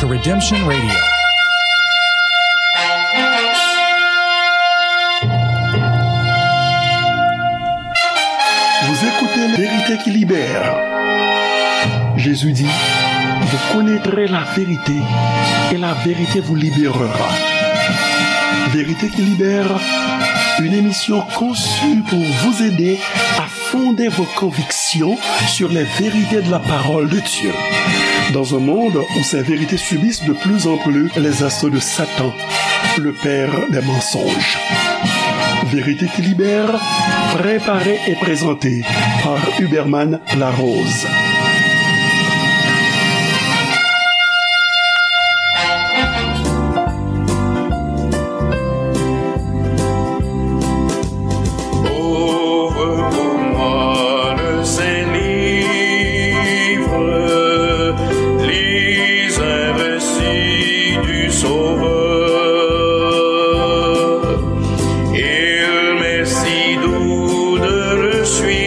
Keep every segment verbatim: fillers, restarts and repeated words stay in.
Redemption Radio. Vous écoutez Vérité qui libère. Jésus dit, vous connaîtrez la vérité et la vérité vous libérera. Vérité qui libère, une émission conçue pour vous aider à fonder vos convictions sur les vérités de la parole de Dieu. Dans un monde où ces vérités subissent de plus en plus les assauts de Satan, le père des mensonges. Vérité qui libère, préparée et présentée par Huberman Larose. Ouvre pour moi le Saint Livre, lis un récit du Sauveur. Il m'est si doux de le suivre,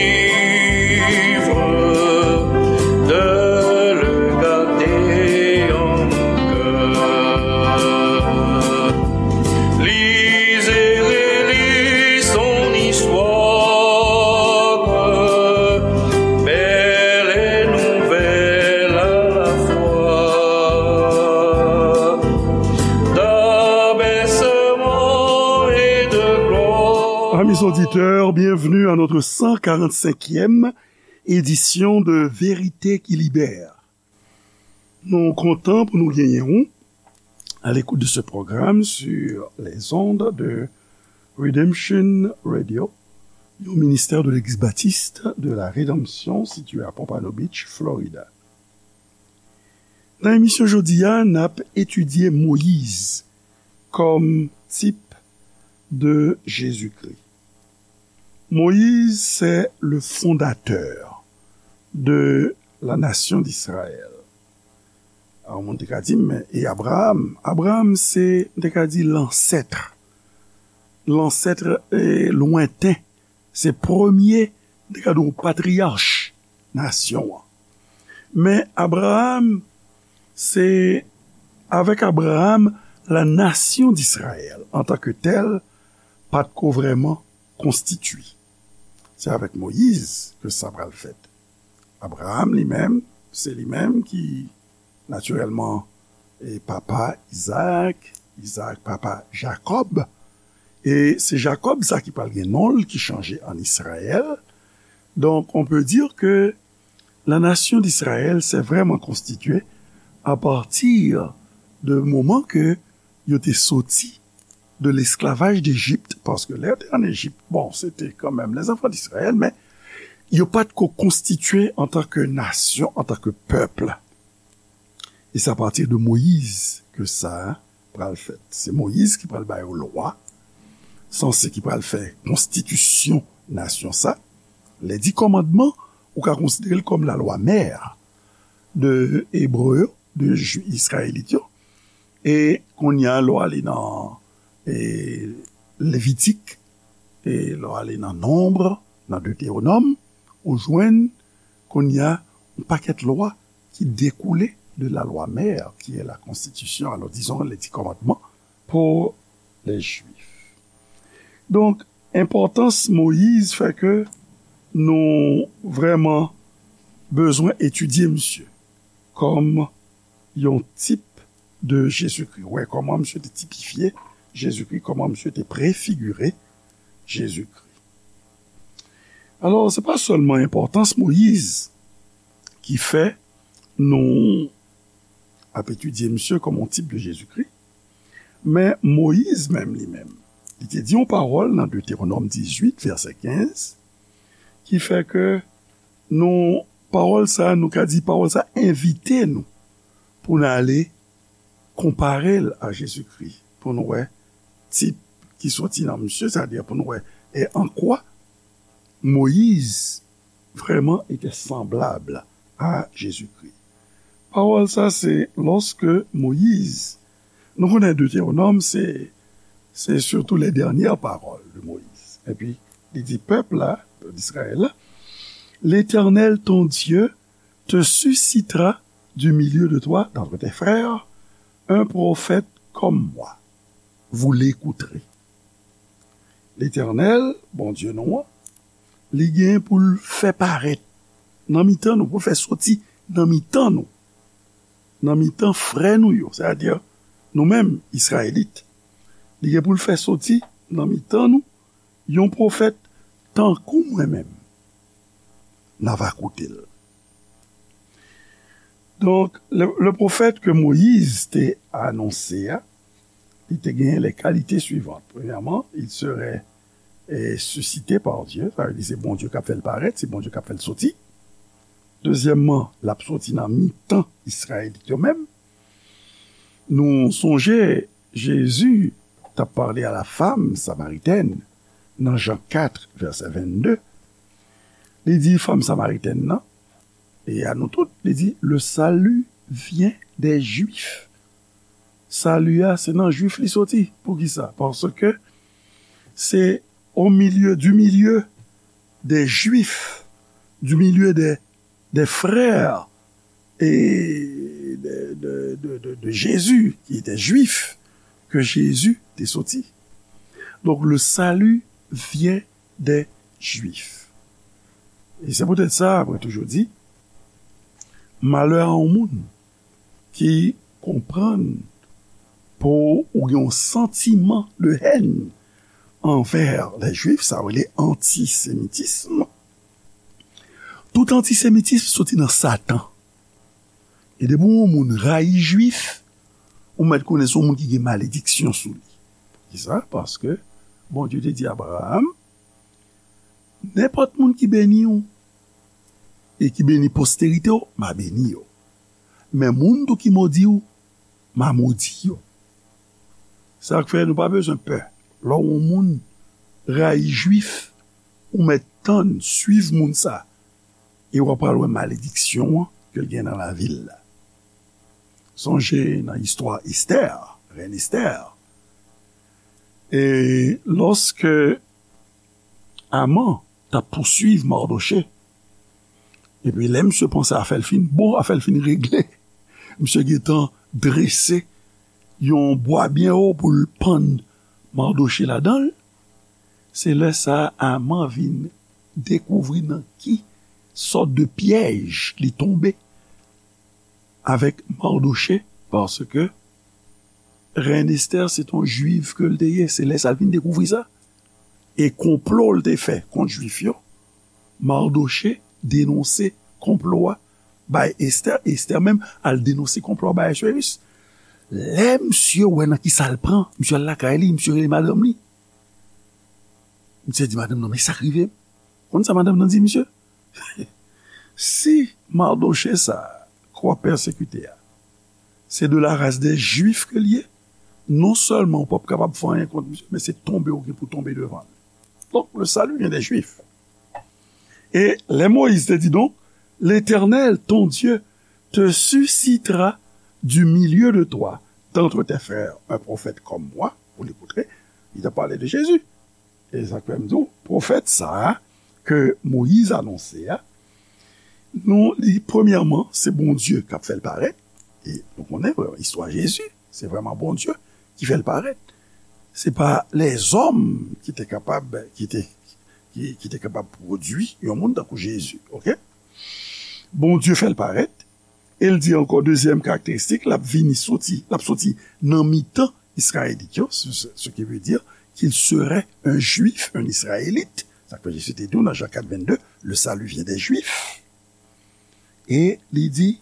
de le garder en mon cœur. Lis et relis son histoire, belle et nouvelle à la fois. D'abaissement et de gloire. Amis auditeurs, bienvenue à notre cent quarante-cinquième édition de Vérité qui Libère. Nou kontan pou nou genyen w à l'écoute de ce programme sur les ondes de Redemption Radio, yon ministè de Legliz Batis de la Redanmsyon sitiye a Pompano Beach, Florida. Nan emisyon jodi a, n ap etidye Moyiz kòm tip de Jezikri. Moyiz, c'est le fondateur de la nation d'Israël. Yon moun te ka di, men e Abraham? Abraham, se, m te ka di, lansèt. Lansèt, eh, lwenten. Se premye, m te ka di w, patriyach nasyon an. Men Abraham, se avèk Abraham, la nation d'Israël, en tant que telle, pa t ko vrèman konstitye. Se avèk Moyiz ke sa pral fèt. Abraham li menm, se li menm ki, natirèlman, e papa Izaak, Izaak papa Jakòb, e se Jakòb sa ki pral gen non l ki chanje an Izrayèl. Donc, on peut dire que la nation d'Israël s'est vraiment constituée à partir de moman ke yo te soti de l'esclavage d'Égypte, paske lè yo te an Ejip, bon, se te kanmenm les enfants d'Israël, men yo pa t ko konstitye antanke nasyon, antanke pèp. E se apati de Moyiz ke sa pral fèt. Se Moyiz ki pral ba yo lwa, sanse ki pral fè konstitisyon nasyon sa. Les dix commandements, ou ka konsidere l kòm la loi mère de Ebre yo, de Ju-, Izrayelit yo. E kounye a, lè w ale nan, e, Levitik, e lè w ale nan Nonb, nan Detewonòm, ou jwenn kounye a yon pakèt lwa ki dekoule de la loi mère, qui est la constitution, alors disons les dix commandements pour les Juifs. Donk, enpòtans Moyiz fè ke nou vrèman bezwen etidye misye kòm yon tip de Jezikri. Wè kòman misye te tipifye Jezikri, kòman misye te prefigire Jezikri. Alò, se pa sèlman enpòtans Moyiz ki fè nou ap etidye misye kòm yon tip de Jezikri, men Moyiz menm li menm, li te di yon pawòl nan Detewonòm dizuit, vèsè kenz, ki fè ke nou, pawòl sa, nou ka di pawòl sa envite nou pou n ale konpare l a Jezikri, pou n wè tip ki soti nan misye, sètadi pou n wè e an kwa Moyiz vraiment était semblable à Jésus-Christ. Pawòl sa, se lòske Moyiz, nou konnen Detewonòm, se, se surtout les dernières paroles de Moïse. Epi, li di pèp la, pèp Izrayèl la, L'Éternel ton Dieu te suscitera du milieu de toi, d'entre tes frères, Un prophète comme moi, vous l'écouterez. Letènèl, Bondye nou an, li gen pou l fè parèt nan mitan nou, pou l fè soti nan mitan nou, nan mitan frè nou yo, sètadi nou menm, Izrayelit. Li gen pou l fè soti nan mitan nou yon pwofèt tankou mwen menm. N a va koute l. Donk, le, le pwofèt ke Moyiz te anonse a, li te genyen les qualités suivantes. Premyèman, il serait eh, suscité par Dieu, sa vle di se Bondye k ap fè l parèt, se Bondye k ap fè l soti. Dezyèmman, l ap soti nan mitan Izrayelit yo menm. Nou sonje, Jezi t ap pale a la femme samaritaine nan Jan kat, vèsè vennde. Li di fanm samaritèn nan, e a nou tout, li di, le salut vient des Juifs. Sali a, se nan Jwif li soti. Poukisa? Paske se au milieu, du milieu des Juifs, du milieu des, des frères et de, de, de, de, de Jésus, qui étaient juifs, que Jésus te soti. Donc, le salut vient des Juifs. E se poutèt sa, mwen toujou di, malè a yon moun ki konprann pou ou gen yon santiman de hèn anvè lè Jwif, sa yo rele antisemitism. Tout antisemitism soti nan Satan. E depi yon moun rayi Jwif, ou mèt konnen se yon moun ki gen malediksyon sou li. Poukisa? Paske Bondye te di Abraram, nenpòt moun ki beni w e ki beni posterite w, m a beni yo. Men moun tou ki modi w, m a modi yo. Sa k fè nou pa bezwen pè. Lè yon moun rayi Jwif, ou mèt tann, swiv moun sa, e w ap pral wè malediksyon an ke l gen nan lavi l la. Sonje nan istwa Estè, rèn Estè. E lòske Aman t ap pouswiv Mardoche, epi lè misye panse afè l fin bon, afè l fin regle, misye gentan drese yon bwa byen wo pou l pann Mardoche ladan l. Se lè sa a Aman vin dekouvri nan ki sòt de pyèj li tonbe avèk Mardoche, paske rèn Estè se t on jwiv ke l te ye. Se lè sa l vin dekouvri sa. E konplo l te fè kont Jwif yo, Mardoche denonse konplo a bay Estè, Estè menm al denonse konplo a bay Ahasweyis. Lè misye wè nan ki sa l pran, misye al lakay li, misye rele madanm li. Misye di madanm nan, men sa k rive m. Konn sa madanm nan di misye? Si Mardoche sa a ke w ap pèsekite a, se de la race des Juifs ke l ye, non sèlman ou p ap kapab fè anyen kont misye, men se tonbe ou gen pou tonbe devan l. Donk, le salut vient des Juifs. E lè Moyiz te di, donc, L'Éternel, ton Dieu, te suscitera du milieu de toi, d'entre tes frères, un prophète comme moi, vous l'écouterez, il a parlé de Jésus. E sa k fè m di w, pwofèt sa a ke Moyiz anonse a, nou li, premyèman, se Bondye k ap fè l parèt. E nou konnen vrèman istwa Jezi, se vrèman Bondye ki fè l parèt. Se pa lèzòm ki te kapab, ki te, ki, ki te kapab pwodui yon moun tankou Jezi, oke? Bondye fè l parèt, e l di ankò, dezyèm karakteristik, l ap vini soti, l ap soti nan mitan Izrayelit yo, ce, ce, ce qui veut dire qu'il serait un Juif, un Israélite. Sa k fè Jezi te di w nan Jan kat vennde, le salut vient des Juifs. E li di,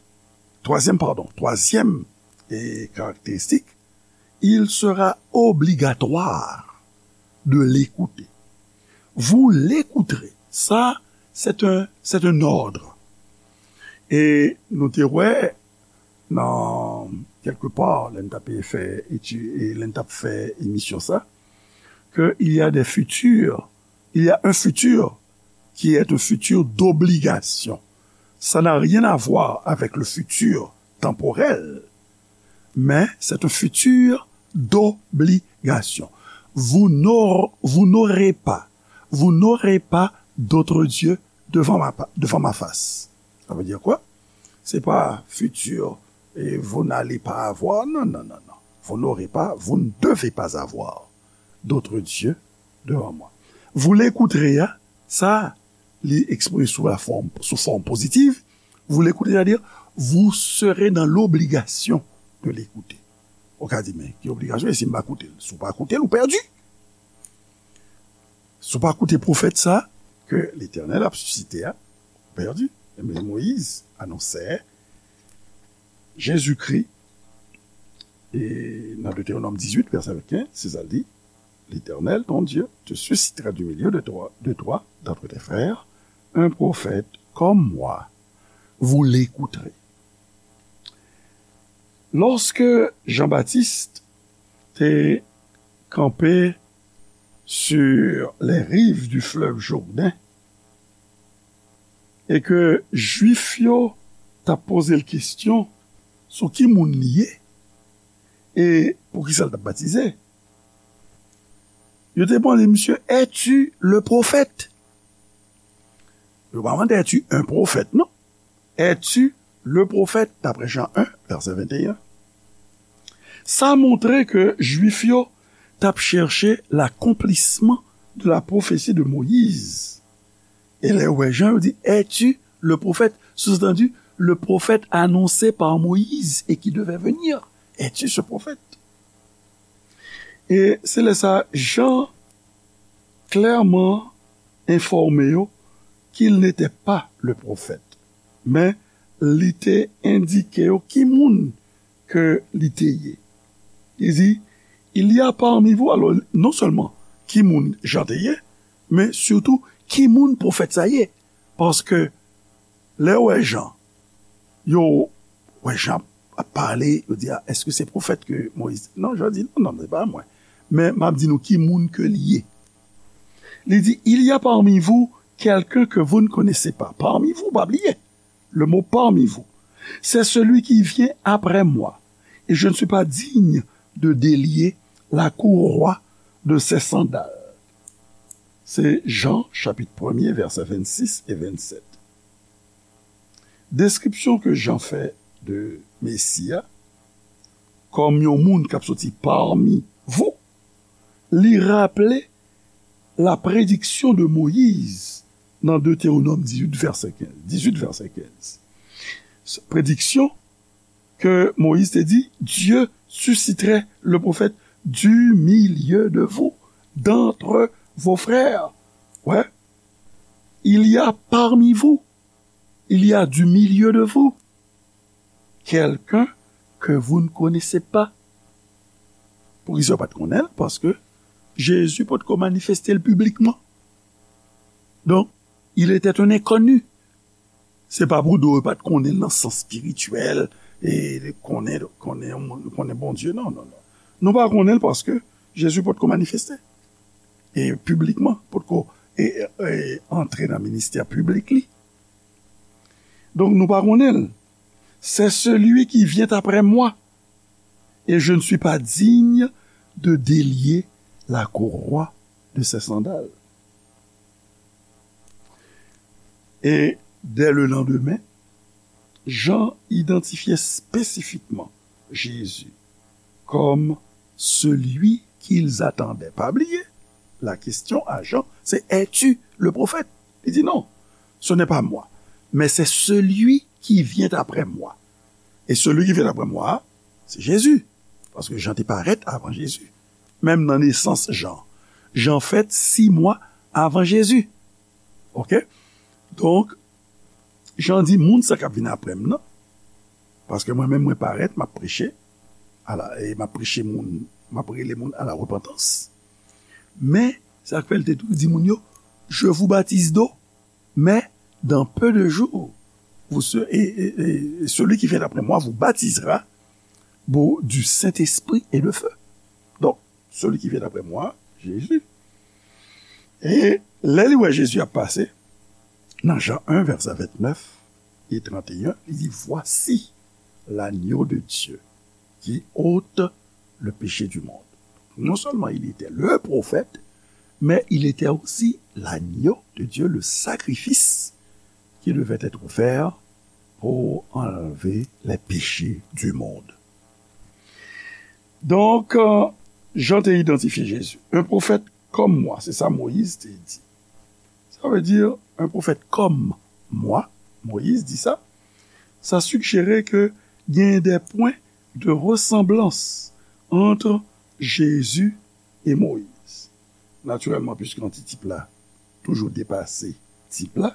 twazyèm, padon, twazyèm e karakteristik, il sera obligatoire de l'écouter. Vous l'écouterez. Ça, c'est un, c'est un ordre. E nou te wè nan, kèlke pa, lè n t ap fè eti-, e lè n t ap fè emisyon sa, que il y a des futurs, il y a un futur qui est un futur d'obligation. Ça n'a rien à voir avec le futur temporel, mais c'est un futur d'obligation. Vous n'aur-, vous n'aurez pas, vous n'aurez pas d'autre Dieu devant ma pa-, devant ma face. Ça veut dire quoi? Se pa futur Et vous n'allez pas avoir, non, non, non, non. Vous n'aurez pas, vous ne devez pas avoir d'autres dieux devant moi. Vous l'écouterez, hein, sa, li eksprime sou la fòm, sou fòm pozitiv. Vous l'écoutez, c'est-à-dire, vous serez dans l'obligation de l'écouter. Ou ka di, men ki obligasyon, e si m pa koute l? Si w pa koute l, ou pèdi. Si w pa koute pwofèt sa, ke Letènèl ap sisite a, ou pèdi. Ebyen, Moyiz anonsè Jezikri, e nan Deutéronome dix-huit, verset quinze, se sa l di, L'Éternel, ton Dieu, te suscitera du milieu de toi, de toi, d'entre tes frères, un prophète comme moi. Vous l'écouterez. Lorsque Jean-Baptiste te kanpe sur les rives du fleuve Jourdain, e ke Jwif yo t ap poze l kesyon sou ki moun li ye, e poukisa l t ap batize. Yo te mande misye, es-tu le prophète? Yo pa mande, es-tu un prophète, non. Es-tu le prophète, d'après Jean un, verset vingt et un. Sa montre ke Jwif yo t ap chèche l'accomplissement de la prophétie de Moïse. E lè yo wè Jan, yo di, es-tu le prophète? Sous-entendu, le prophète annoncé par Moïse et qui devait venir. Es-tu ce prophète? E se lè sa, Jan klèman enfòme yo qu'il n'était pas le prophète. Men, li te endike yo ki moun ke li te ye. Li di, il y a parmi vous, alò, non sèlman ki moun Jan te ye, men sitou ki moun pwofèt sa ye. Paske lè yo wè Jan, yo wè Jan ap pale, yo di, a, èske se pwofèt ke Moyiz? Non, Jan di, non, non, se pa mwen. Men m ap di nou ki moun ke li ye. Li di, il y a parmi vous quelqu'un que vous ne connaissez pas. Parmi vous, pa bliye le mot parmi vous. C'est celui qui vient après moi, et je ne suis pas digne de délier la courroie de ses sandales. Se Jan, chapit premye, vèsè vennsis e vennsèt. Deskripsyon ke Jan fè de Mesi a, kòm yon moun k ap soti parmi vous, li raple la prédiction de Moïse nan Deutéronome dix-huit, verset quinze. Dix-huit, verset quinze. Prédiction ke Moyiz te di, Dieu susciterait le prophète du milieu de vous, d'entre vos frères. Ouais. Il y a parmi vous, il y a du milieu de vous, quelqu'un que vous ne connaissez pas. Poukisa yo pa t konnen l? Paske Jezi potko manifeste l piblikman. Donk, il était un inconnu. Se pa pou do yo pa t konnen l nan sans espirityèl, e konnen, konnen, konnen Bondye. Non, non, non. Nou pa konnen l paske Jezi potko manifeste. E piblikman, potko e, e, antre nan ministè piblik li. Donk, nou pa konnen l. C'est celui qui vient après moi, et je ne suis pas digne de délier la courroie de ses sandales. Et dès le lendemain, Jean identifiait spécifiquement Jésus comme celui qu'ils attendaient. Pa bliye, la question à Jean, c'est, es-tu le prophète? Li di, non, ce n'est pas moi, mais c'est celui qui vient après moi. Et celui qui vient après moi, c'est Jésus. Paske Jan te parèt avan Jezi. Menm nan nesans Jan. Jan fèt sis mwa avan Jezi. Oke? Donk, Jan di, moun sa k ap vin apre m nan, paske mwen menm mwen parèt, m ap preche, ala, e m ap preche moun, m ap rele moun a la repantans. Men, sa k fè l te tou di moun yo, je vous baptise d'eau, mais dans peu de jours, vous se-, et, et, et celui qui vient après moi vous baptisera, bon, du Saint-Esprit et de feu. Donk, celui qui vient après moi, Jésus. E lè li wè Jezi ap pase, nan Jan un, vèsè vennèf e trannteyen, li di, voici l'agneau de Dieu qui ôte le péché du monde. Non seulement il était le prophète, mais il était aussi l'agneau de Dieu, le sacrifice qui devait être offert pour enlever les péchés du monde. Donk, euh, Jan te idantifye Jezi. Un prophète comme moi, se sa Moyiz te di. Sa vle di, un prophète comme moi, Moyiz di sa. Sa sijere ke gen de pwen de resanblans ant Jezi e Moyiz. Natirèlman, piske antitip la toujou depase tip la,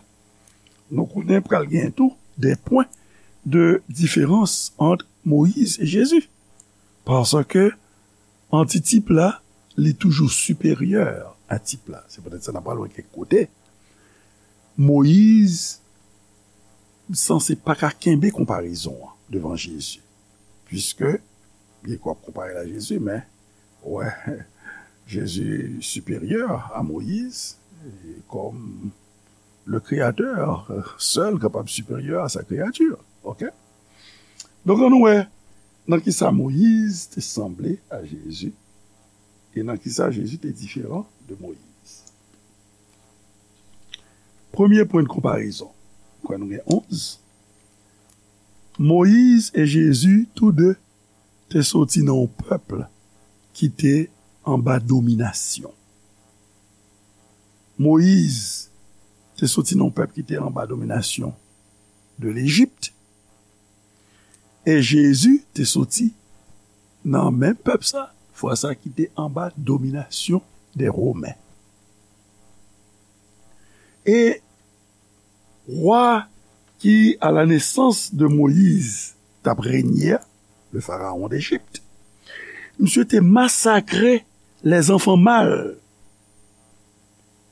nou konnen pral gen tou de pwen de diferans ant Moyiz e Jezi. Paske antitip la, li toujou siperyè a tip la. Se poutèt sa n ap pral wè kèk kote Moyiz sanse pa ka kenbe konparezon an devan Jezi. Piske, byen ke w ap konpare l a Jezi, men, wè, Jezi siperyè a Moyiz, e kòm le Créateur, euh, sèl kapab siperyè a sa kreyati. Oke? Donk, ann nou wè nan kisa Moyiz te sanble a Jezi e nan kisa Jezi te diferan de Moyiz. Premye pwen de konparezon. Kwè nou gen onz. Moyiz e Jezi, tou de, te soti nan yon pèp ki te anba dominasyon. Moyiz te soti nan yon pèp ki te anba dominasyon de Lejip, e Jezi te soti nan menm pèp sa, fwa sa ki te anba dominasyon de Women. E wa ki, à la naissance de Moïse, t ap renye a, le pharaon d'Égypte, misye te masakre les enfants mâles.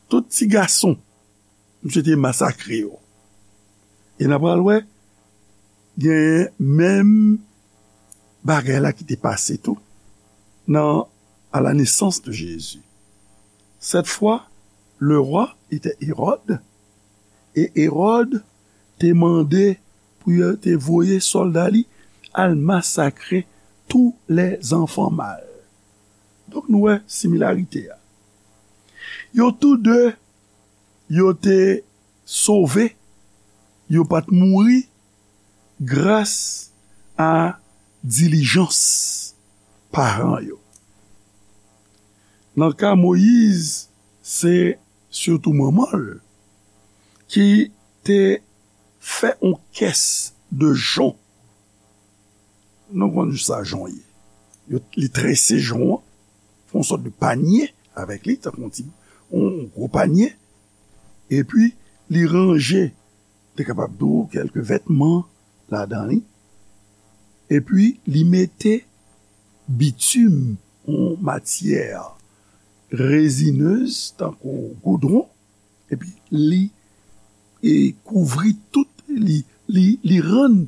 Tout ti gason, misye te masakre yo. E n a pral wè, gen menm bagay la ki te pase tou nan à la naissance de Jésus. Cette fois, le roi était Hérode, e Hérode te mande pou yo te voye sòlda li al masakre tous les enfants mâles. Donk, nou wè similarite a. Yo tou de, yo te sove, yo pa t mouri gras a dilijans paran yo. Nan ka Moyiz, se sitou manman l ki te fè yon kès de jon. Nou konn sa jon ye. Yo, li trese jon an, fè yon sòt de panye avèk li, tankou yon ti, yon gwo panye, epi li ranje, te kapab di w, kèlke vètman ladan li, epi li mete bitim, yon matyè rezinez, tankou goudwon, epi li, e, kouvri tout, li, li, li rann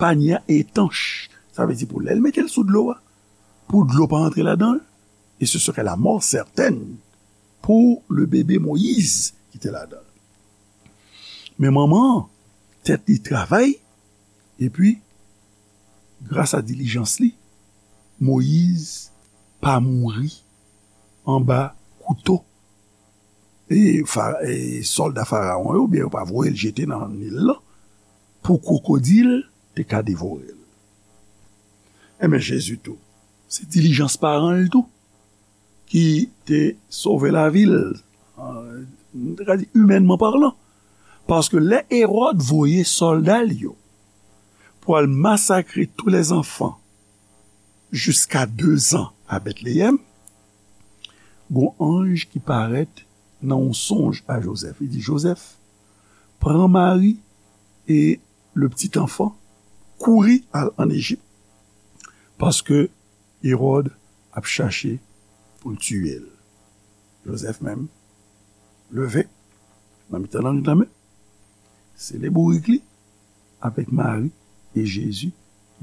panye a etanch. Sa vle di pou lè l mete l sou dlo a, pou dlo pa antre ladan l, et ce serait la mort certaine pour le bébé Moïse ki te ladan l. Men manman an, tèt li travay, epi, gras a dilijans li, Moyiz pa mouri anba kouto e fa-, e sòlda Farawon yo, oubyen yo pa voye l jete nan Nil lan, pou kwokodil te ka devore l. Enben, Jezi tou, se dilijans paran l tou ki te sove lavi l, euh, nou te ka di, imènman palan. Paske lè Ewòd voye sòlda l yo pou al masakre tous les enfants jusqu'à deux ans à Bethléem, gon anj ki parèt nan yon sonj a Jozèf. Li di, Jozèf, pran Mari e le petit enfant, kouri al an Ejip, paske Ewòd ap chache pou l tiye l. Jozèf menm, leve, nan mitan lannwit la menm, sele bourik li avèk Mari e Jezi,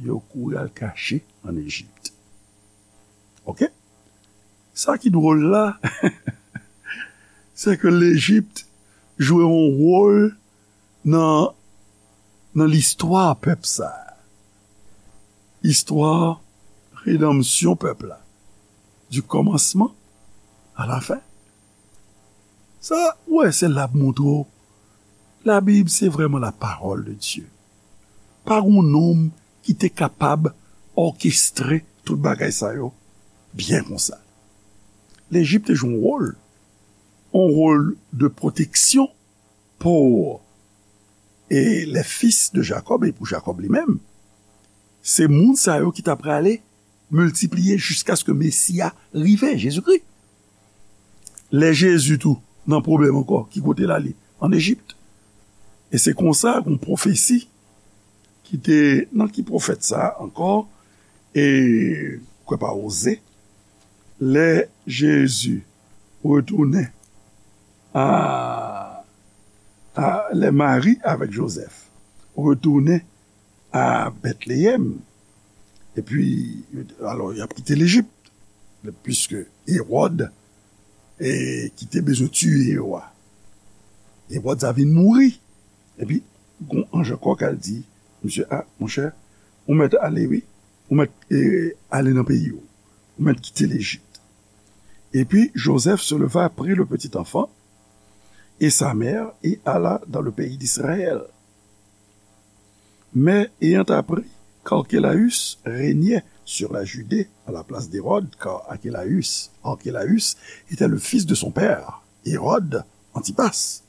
yo kouri al kache an Ejip. Oke? Sa ki dwòl la, se ke Lejip jwe yon wòl nan, nan listwa pèp sa a. Istwa redanmsyon pèp la. Du commencement à la fin. Sa, ou wè, se la ap montre w, Labib, se vrèman la parole de Dieu. Pa gen yon nonm ki te kapab òkestre tout bagay sa yo byen konsa. Lejip te jwe yon wòl, yon wòl de pwoteksyon pou e les fils de Jacob, e pou Jakòb li menm. Se moun sa yo ki ta prale miltipliye jiskaske Mesi a rive, Jezikri. Lè Jezi tou nan pwoblèm ankò, ki kote l ale? Ann Ejip. E se konsa, yon pwofesi ki te, nan ki pwofèt sa a ankò? E, kwè pa Oze, lè Jezi retounen a, a, lè Mari avèk Jozèf retounen a Bètleyèm, epi, alò, y ap kite Lejip, piske Ewòd, e, ki te bezwen tiye yo a, Ewòd sa vin mouri, epi, gon anj ankò k al di misye, a, monchè, ou mèt ale, wi, ou mèt, e, ale nan peyi w, ou mèt kite Lejip. Et puis Joseph se leva, prit le petit enfant et sa mère et alla dans le pays d'Israël. Mais ayant appris qu'Archelaüs régnait sur la Judée à la place d'Hérode, car Archelaüs, Archelaüs était le fils de son père, Hérode Antipas.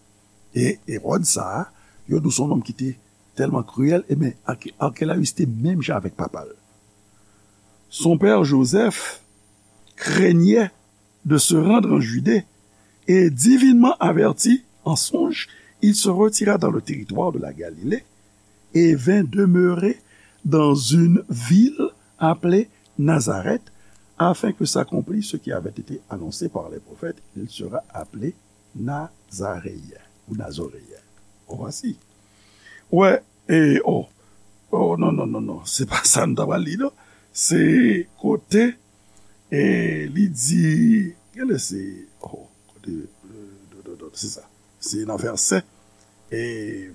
E Ewòd sa a, yo di w se yon nonm ki te tèlman kriyèl, ebyen, Arke-, Arkelayis te menm jan avèk papa l. Son père Joseph craignait de se rendre en Judée, et divinement averti en songe, il se retira dans le territoire de la Galilée et vint demeurer dans une ville appelée Nazareth, afin que s'accomplisse ce qui avait été annoncé par les prophètes, il sera appelé Nazaréen ou Nazoréen. Ou vwasi. Wè, e, oh, oh, non, non, non, non, se pa sa n ta pral li, non. Se kote, e, li di, gade se, oh, kote, e, do, do, do, se sa. Se nan vèsè, e,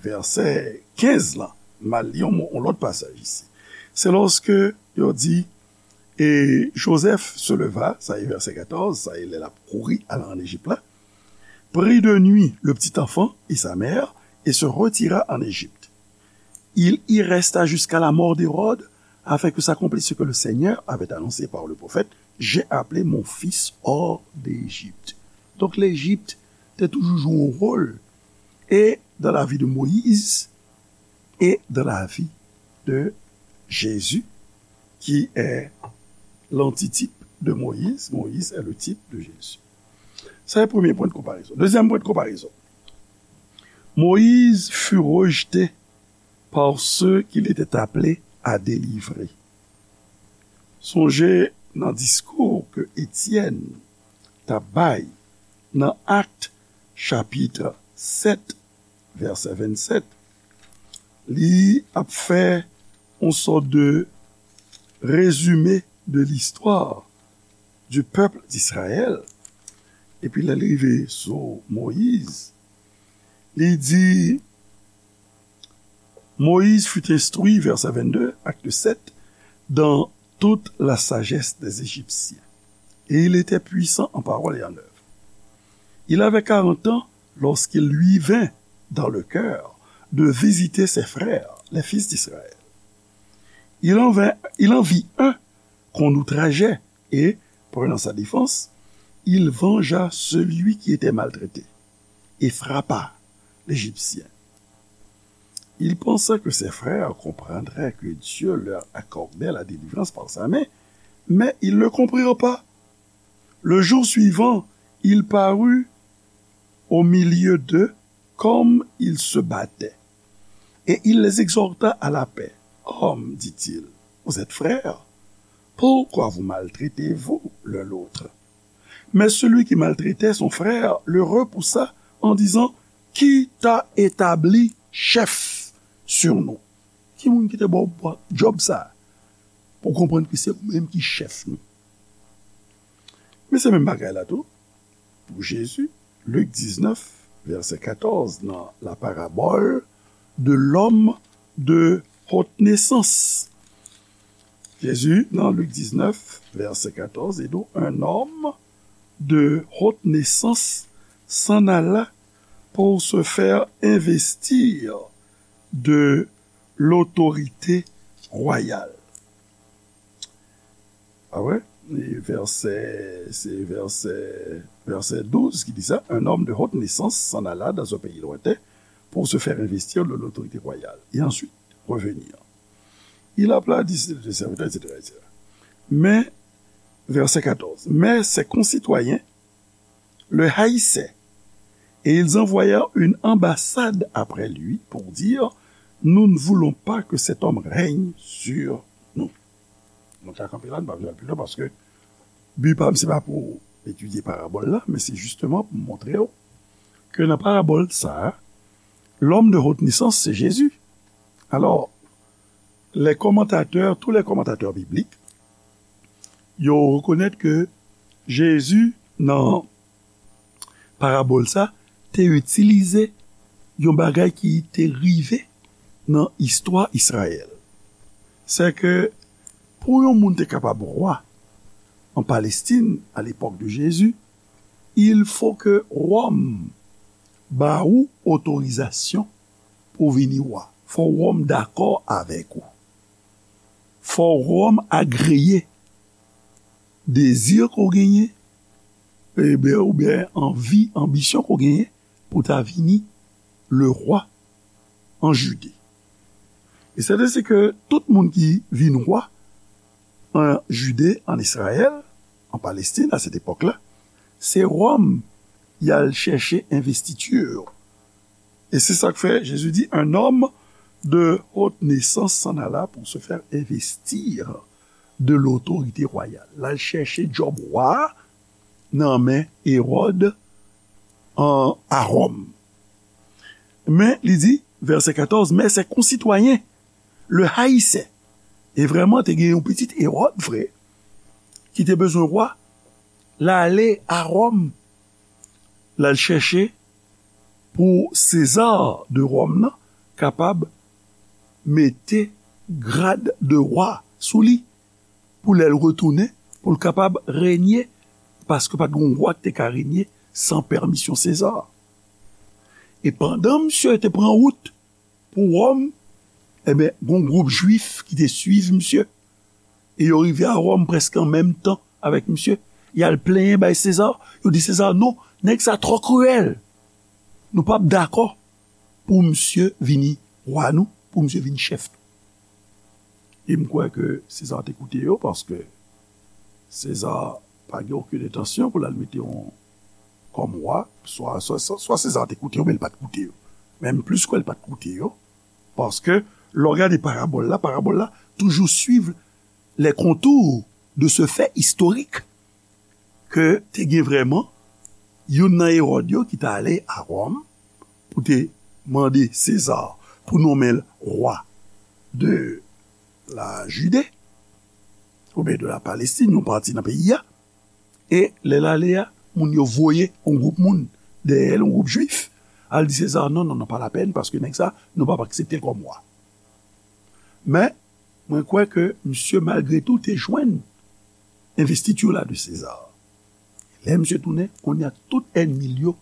vèsè kenz lan. M al li yon, yon lòt pasaj isi. Se lòske yo di, et Joseph se leva, sa e vèsè katòz, sa e lè l ap kouri al ann Ejip la, prit de nuit le petit enfant et sa mère et se retira en Égypte. Il y resta jusqu'à la mort d'Hérode, afin que s'accomplisse ce que le Seigneur avait annoncé par le prophète, j'ai appelé mon fils hors d'Égypte. Donk, Lejip te toujou jwe yon wòl, e dans la vie de Moïse, et dans la vie de Jésus, qui est l'antitype de Moïse. Moïse est le type de Jésus. Sa se premye pwen de konparezon. Dezyèm pwen de konparezon. Moïse fut rejeté par ceux qu'il était appelé à délivrer. Sonje nan diskou ke Etyèn t ap bay nan Akt chapit sèt, vèsè vennsèt, li ap fè yon sòt de rezime de l'histoire du peuple d'Israël. Epi lè l rive sou Moyiz, li di, Moïse fut instruit, verset vingt-deux, acte sept, dans toute la sagesse des Égyptiens. Et il était puissant en parole et en œuvre. Il avait quarante ans lorsqu'il lui vint dans le cœur de visiter ses frères, les fils d'Israël. Il en vint, il en vit un qu'on outrageait, et, prenant sa défense, il vengea celui qui était maltraité et frappa l'Égyptien. Il pensa que ses frères comprendraient que Dieu leur accordait la délivrance par sa main, mais ils ne comprirent pas. Le jour suivant, il parut au milieu d'eux comme ils se battaient. Et il les exhorta à la paix. Hommes, dit-il, vous êtes frères, pourquoi vous maltraitez-vous l'un l'autre? Mais celui qui maltraitait son frère le repoussa en disant, qui t'a établi chef sur nous? Ki moun ki te ba w djòb sa a? Pou w konprann ke se ou menm ki chèf nou. Men se menm bagay la tou pou Jezi, Lik diznèf, vèsè katòz, nan la parabole de l'homme de haute naissance. Jezi, nan Lik diznèf, vèsè katòz, li di w, un homme de haute naissance s'en alla pour se faire investir de l'autorité royale. Ah ouais? E vèsè, se vèsè, vèsè douz ki di sa, un homme de haute naissance s'en alla dans un pays lointain pour se faire investir de l'autorité royale et ensuite revenir. Il appela dix de ses serviteurs, et cetera, et cetera. Mais, verset quatorze, mais ses concitoyens le haïssaient et ils envoyèrent une ambassade après lui pour dire, nous ne voulons pas que cet homme règne sur nous. Nou ka kanpe la, nou pa bezwen al pi lwen paske bi pa m se pa pou etidye parabòl la, men se jisteman pou montre w ke nan parabòl sa a, l'homme de haute naissance, c'est Jésus. Alors, les commentateurs, tous les commentateurs bibliques, yo rekonèt ke Jezi nan parabòl sa te itilize yon bagay ki te rive nan istwa Izrayèl. Se ke pou yon moun te kapab wa an Palestin a lepòk de Jezi, il faut que Wòm ba ou otorizasyon pou vini wa. Fò Wòm dakò avèk ou. Fò Wòm agreye dezi ke w genyen, ebyen, oubyen anvi, anbisyon ke w genyen pou ta vini le roi en Judée. E sèten se ke tout moun ki vin wa an Jide, an Izrayèl, an Palestin, a sèt epòk la, se Wòm y al chèche envestiti yo. E se sa k fè Jezi di, un homme de haute naissance s'en alla pour se faire investir de l'autorité royale. L al chèche djòb wa nan men Ewòd an, a Wòm. Men, li di, vèsè katòz, mais ses concitoyens le haïssaient. E vrèman, te gen yon pitit Ewòd vre, ki te bezwen wa, l ale a Wòm, l al chèche pou Seza de Wòm nan kapab mete grad de wa sou li, pou lè l retounen, pou l kapab renye, paske pa t gen yon wa ki te ka renye san pèmisyon Seza. E pandan misye te pran wout pou Wòm, ebyen, gen yon gwoup Jwif ki te swiv misye. E yo rive a Wòm prèske an menm tan avèk misye. Y al plenyen bay Seza. Yo di Seza, non, nèg sa twò kriyèl. Nou p ap dakò pou misye vini wa nou, pou misye vin chèf nou. E m kwè ke Seza te koute yo, paske Seza pa gen okenn entansyon pou l al mete yon kòm wa, swa, swa, swa, swa Seza te koute yo, men l pa t koute yo. Menm plis ke l pa t koute yo, paske lè w gade parabòl la, parabòl la toujou swiv les contours de ce fait historique ke te gen vrèman youn nan Ewòd yo ki t ale a Wòm pou te mande Seza pou nonmen l wa de la Jide, oubyen de la Palestin, yon pati nan peyi a. E lè l ale a, moun yo voye yon gwoup moun dèyè l, yon gwoup Jwif, al di Seza, non, non, non, pa lapèn, paske nèg sa, nou p ap aksepte l kòm wa. Men, mwen kwè ke misye, malgre tou, te jwenn envestiti la de Seza. Lè misye tounen, kounye a tout ènmi l yo,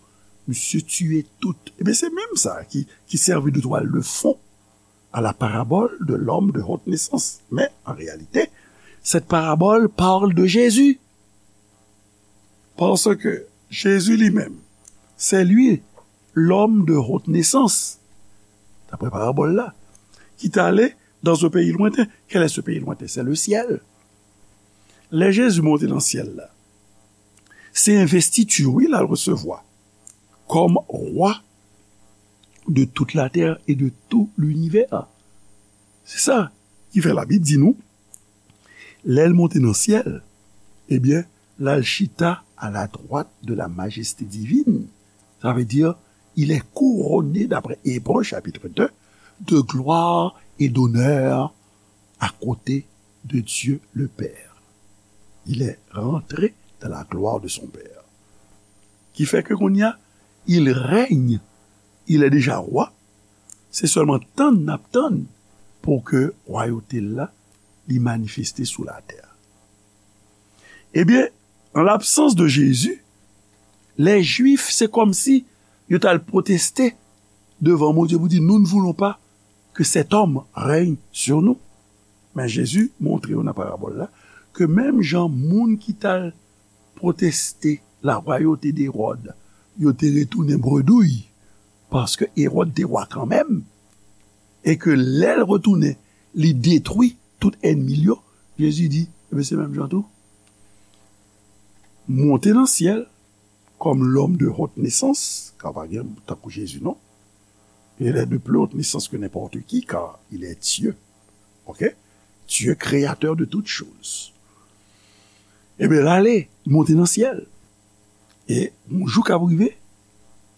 misye tiye tout. Ebyen, se menm sa ki, ki sèvi de twal de fon à la parabole de l'homme de haute naissance. Mais en réalité, cette parabole parle de Jésus. Parce que Jésus lui-même, c'est lui l'homme de haute naissance, d'après parabole là, qui est allé dans un pays lointain. Quel est ce pays lointain? C'est le ciel. Lè Jezi monte nan syèl la, se envestiti, wi, l al resevwa kòm wa de toute la terre et de tout l'univers. Se sa ki fè Labib di nou, lè l monte nan syèl, ebyen, l al chita à la droite de la majesté divine. Ça veut dire, il est couronné, d'après Hébreux chapitre deux, de gloire et d'honneur à côté de Dieu le Père. Il est rentré dans la gloire de son Père. Ki fè ke kounye a, il règne, il est déjà roi. Se sèlman tann n ap tann pou ke wayote l la, li manifeste sou latè. Ebyen, en l'absence de Jésus, les Juifs, se kòmsi yo t al pwoteste devan Bondye pou di, nous ne voulons pas que cet homme règne sur nous. Men Jezi montre yo nan parabòl la ke menm jan moun ki t al pwoteste larwayote d'Ewòd, yo te retounen bredouy, paske Ewòd te wa kanmenm, e ke lè l retounen, li detwi tout ènmi l yo, Jezi di, ebyen, se menm jan tou. Monte nan syèl, comme l'homme de haute naissance, car pa gen tankou Jezi non. Il est de plus haute naissance que n'importe qui, car il est Dieu. Ok? Dieu créateur de toutes choses. Ebyen, l ale, monte nan syèl. E yon jou k ap rive,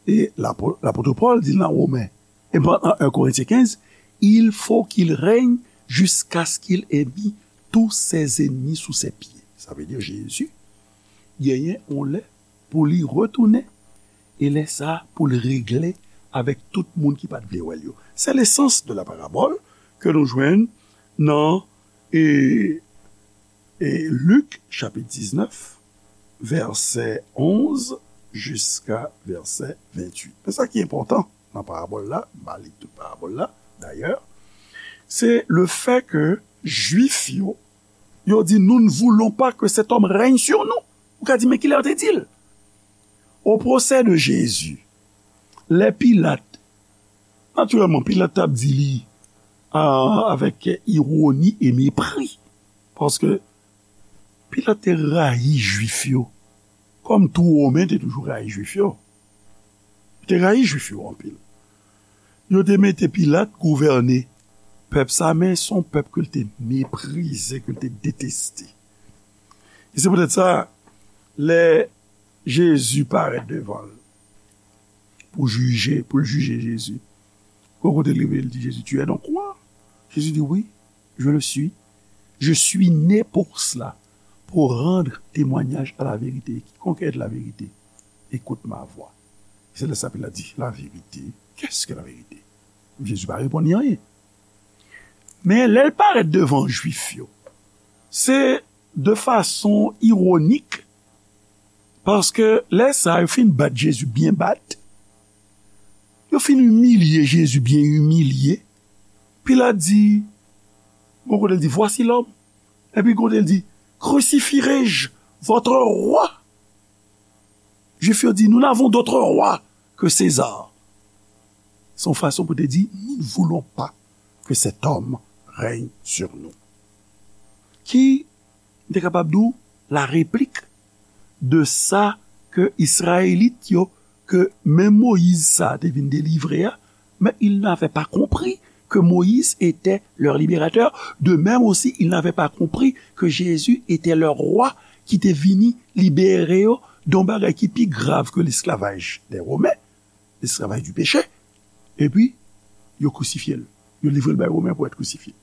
e lapo- lapot Pòl di nan Women, e nan un Korentyen kenz, il faut qu'il règne jusqu'à ce qu'il ait mis tous ses ennemis sous ses pieds. Sa vle di Jezi genyen yon lè pou li retounen, e lè sa a pou l regle avèk tout moun ki pa t vle wè l yo. Se lesans de la parabòl ke nou jwenn nan e, e Lik chapit diznèf, vèsè onz jiska vèsè venntuit. Men sa ki enpòtan nan parabòl la, m pa li tout parabòl la, dayè, se le fè ke Jwif yo, yo di, nous ne voulons pas que cet homme règne sur nous. Ou ka di, men kilè yo te di l? Au procès de Jésus, lè Pilat, natirèlman, Pilat t ap di li a, avèk ironi e mepri, paske Pilat te rayi Jwif yo, kòm tou Women te toujou rayi Jwif yo. Yo te rayi Jwif yo anpil. Yo te mete Pilat gouvène pèp sa, men se yon pèp ke l te meprize, ke l te deteste. E se poutèt sa, lè Jezi parèt devan l pou jije, pou l jije Jezi, gon kote l rive, l di Jezi, tu es donc roi? Jezi di, oui, je le suis. Je suis né pour cela, pour rendre témoignage à la vérité. Quiconque est de la vérité, écoute ma voix. Se lè sa Pilat di, la vérité, qu'est-ce que la vérité? Jezi pa reponn li anyen. Men lè l parèt devan Jwif yo, se de fason iwonik, paske lè sa a, yo fin bat Jezi byen bat, yo fin imilye Jezi byen imilye, Pilat di, gon kote l di, voici l'homme, epi gon kote l di, crucifierai-je votre roi? Jwif yo di, nous n'avons d'autre roi que César. Se yon fason pou te di, nous ne voulons pas que cet homme règne sur nous. Ki m te kapab di w la replik de sa ke Izrayelit yo, ke menm Moyiz sa a te vin delivre a, mais ils n'avaient pas compris que Moïse était leur libérateur. De même aussi, ils n'avaient pas compris que Jésus était leur roi ki te vini libere yo de yon bagay ki pi grav ke lesklavaj dè Women, lesklavaj di peche. Epi, yo krisifye l. Yo livre l bay Women pou èt krisifye.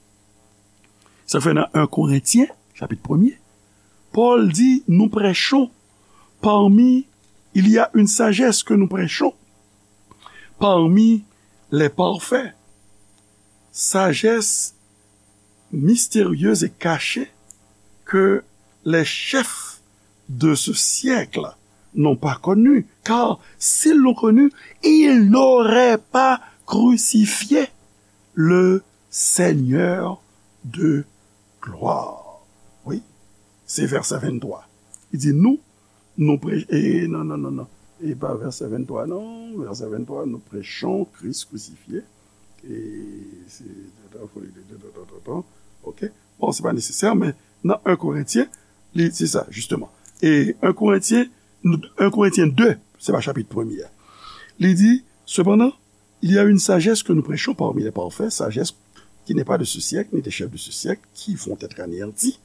Sa fè nan un Korentyen, chapit premye, Pòl di, nous prêchons parmi, il y a une sagesse que nous prêchons parmi les parfaits, sagesse mystérieuse et cachée que les chefs de ce siècle n'ont pas connue, car s'ils l'ont connue, ils n'auraient pas crucifié le Seigneur de gloire. Wi, se vèsè venntwa. Li di, nous, nous prêchons, e, non, non, non, non. E pa vèsè venntwa, non. Vèsè venntwa, nous prêchons Christ crucifié. E se, ok. Bon, se pa nesesè, men nan un Korentyen, li, se sa, jisteman. E un Korentyen, un Korentyen de, se pa chapit premye a. Li di, cependant, il y a une sagesse que nous prêchons parmi les parfaits, sagesse qui n'est pas de ce siècle, ni des chefs de ce siècle, qui vont être anéantis.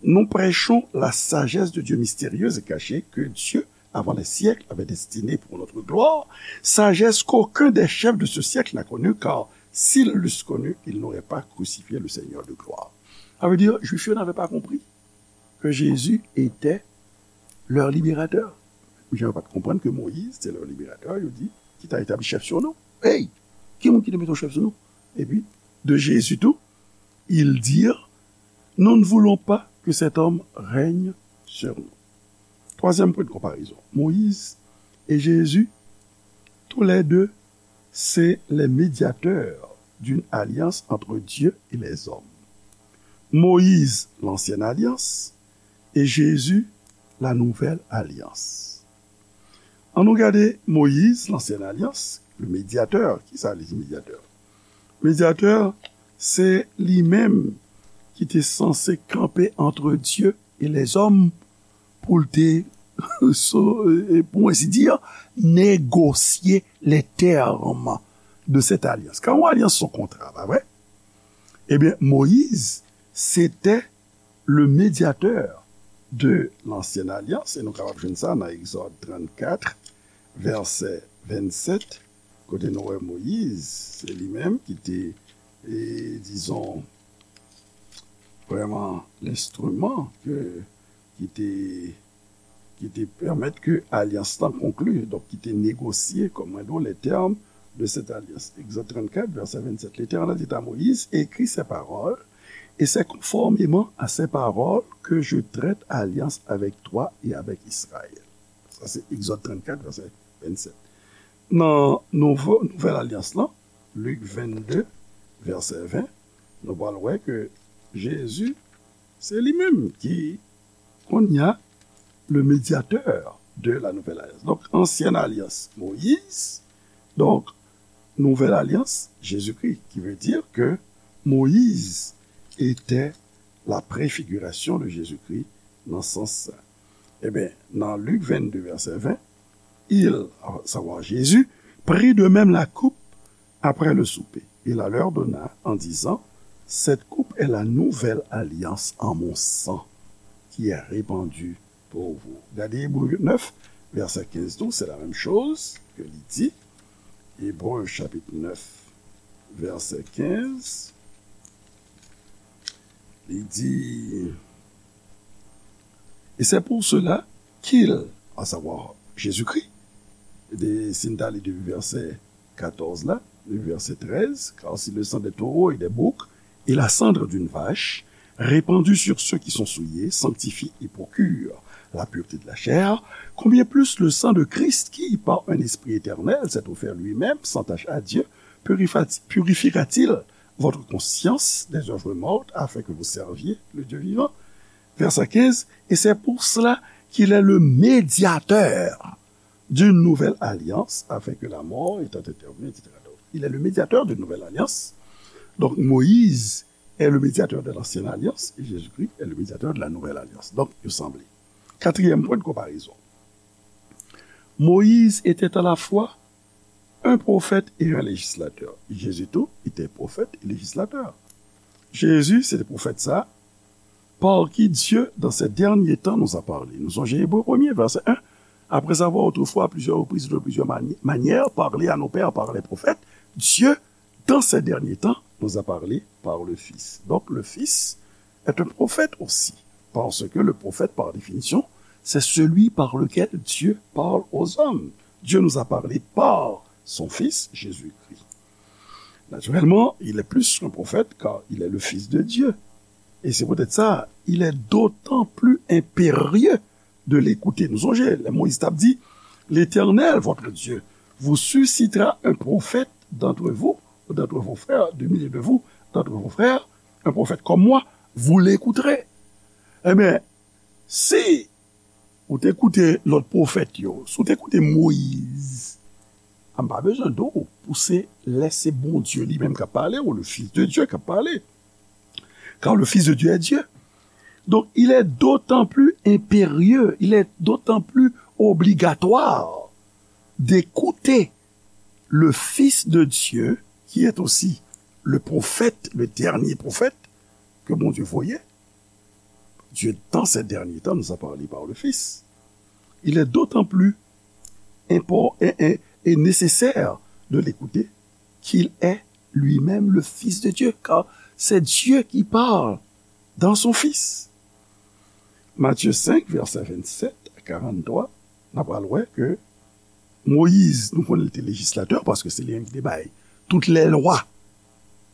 Nous prêchons la sagesse de Dieu mystérieuse et cachée que Dieu, avant les siècles, avait destinée pour notre gloire, sagesse qu'aucun des chefs de ce siècle n'a connue, car s'ils l'eussent connue, ils n'auraient pas crucifié le Seigneur de gloire. Ça veut dire, Juifs n'avaient pas compris que Jésus était leur libérateur. Jan yo pa t konprann ke Moyiz se lè liberatè, yo di, ki ta etabli chèf sou nou. Hey! Ki moun ki te mete yon chèf sou nou? Epi, de Jezi tou, ils dirent, nous ne voulons pas que cet homme règne sur nous. Twazyèm pwen de konparezon, Moyiz e Jezi, tou lè de, se lè medyatè d'une alliance entre Dieu et les hommes. Moïse, l'ancienne alliance, et Jésus, la nouvelle alliance. Ann nou gade Moyiz, lansyen alyans, le medyatè. Kisa li di medyatè? Medyatè, se li menm ki te sanse kanpe entre Dieu et les hommes pou l te, so- e, pou ensi di, negosye les termes de cette alliance. Kan yon alyans se yon kontra, pa vre? Ebyen, Moyiz, se te le médiateur de l'ancienne alliance, e nou kapab jwenn sa nan Egzòd trannkat, vèsè vennsèt, kote nou wè Moyiz, se li menm ki te, e, dizon, vrèman lenstriman ke, ki te, ki te pèmèt ke alyans lan konkli, donk ki te negosye, kòm mwen di w, les termes de cette alliance. Egzòd trannkat, vèsè vennsèt, L'Éternel dit à Moïse, écris ces paroles, et c'est conformément à ces paroles que je traite alliance avec toi et avec Israël. Sa se Egzòd trannkat, vèsè vennsèt. Nan nouvo, nouvèl alyans lan, Lik vennde, vèsè ven, nou pral wè ke Jezi, se li menm ki, kounye a, le médiateur de la nouvelle alliance. Donk, ansyen alyans, Moyiz. Donk, nouvèl alyans, Jezikri, ki vle di ke Moyiz était la préfiguration de Jésus-Christ nan sans sa. Ebyen, nan Lik vennde, vèsè ven, il, à savoir Jésus, prit de même la coupe après le souper, et la leur donna en disant, cette coupe est la nouvelle alliance en mon sang, qui est répandue pour vous. Gade Ebre nèf, vèsè kenz tou, se la menm choz ke li di. Ebre chapit nèf, vèsè kenz, li di, et c'est pour cela qu'il, à savoir Jésus-Christ, de, si n ta li depi vèsè katòz la, le verset treize, car si le sang des taureaux et des boucs et la cendre d'une vache répandue sur ceux qui sont souillés sanctifie et procure la pureté de la chair, combien plus le sang de Christ qui, par un esprit éternel, s'est offert lui-même sans tache à Dieu, purifa- purifiera-t-il votre conscience des œuvres mortes afin que vous serviez le Dieu vivant? Verset quinze, et c'est pour cela qu'il est le médiateur d'une nouvelle alliance, afin que la mort étant intervenue, et cetera. Donc, il est le médiateur d'une nouvelle alliance. Donc, Moïse est le médiateur de l'ancienne alliance et Jésus-Christ est le médiateur de la nouvelle alliance. Donc, yo sanble. Quatrième point de comparaison. Moïse était à la fois un prophète et un législateur. Jésus tout était prophète et législateur. Jezi, se te pwofèt sa, par qui Dieu, dans ces derniers temps, nous a parlé. Nou sonje Ebre premye, vèsè en. Après avoir autrefois à plusieurs reprises et de plusieurs mani- manières parlé à nos pères par les prophètes, Dieu, dans ces derniers temps, nous a parlé par le Fils. Donc le Fils est un prophète aussi, parce que le prophète, par définition, c'est celui par lequel Dieu parle aux hommes. Dieu nous a parlé par son Fils, Jésus-Christ. Naturellement, il est plus qu'un prophète, car il est le Fils de Dieu. Et c'est peut-être ça, il est d'autant plus impérieux de l'écouter. Nou sonje, lè Moyiz t ap di, l'Éternel, votre Dieu, vous suscitera un prophète d'entre vous, d'entre vos frères, du milieu de vous, d'entre vos frères, un prophète comme moi, vous l'écouterez. Ebyen, si ou te koute lòt pwofèt yo, si ou te koute Moyiz, m pa bezwen di w pou se lè se Bondye li menm k ap pale, ou le Fils de Dieu k ap pale. Car le Fils de Dieu est Dieu. Donc, il est d'autant plus impérieux, il est d'autant plus obligatoire d'écouter le Fils de Dieu, qui est aussi le prophète, le dernier prophète que Bondye voye. Dieu, dans ces derniers temps, nous a parlé par le Fils. Il est d'autant plus impor- et, et- et nécessaire de l'écouter qu'il est lui-même le Fils de Dieu, car c'est Dieu qui parle dans son Fils. Matthieu cinq, verset vingt-sept à quarante-trois, n ap pral wè ke Moyiz, nou konnen li te lejislatè, paske se li menm ki te bay tout lè lwa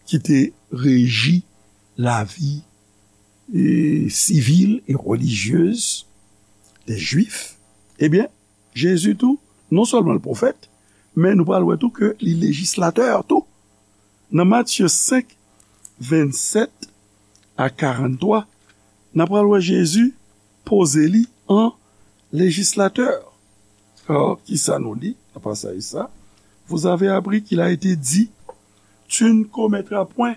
ki te reji lavi, e, sivil e relijyez de Jwif. Ebyen, Jezi tou, non sèlman l pwofèt, men nou pral wè tou ke li lejislatè tou. Nan Matye senk, vennsèt a karanntwa, n a pral wè Jezi poze li an lejislatè. Alò, kisa nou li nan pasaj sa? Vous avez appris qu'il a été dit, tu ne commettras point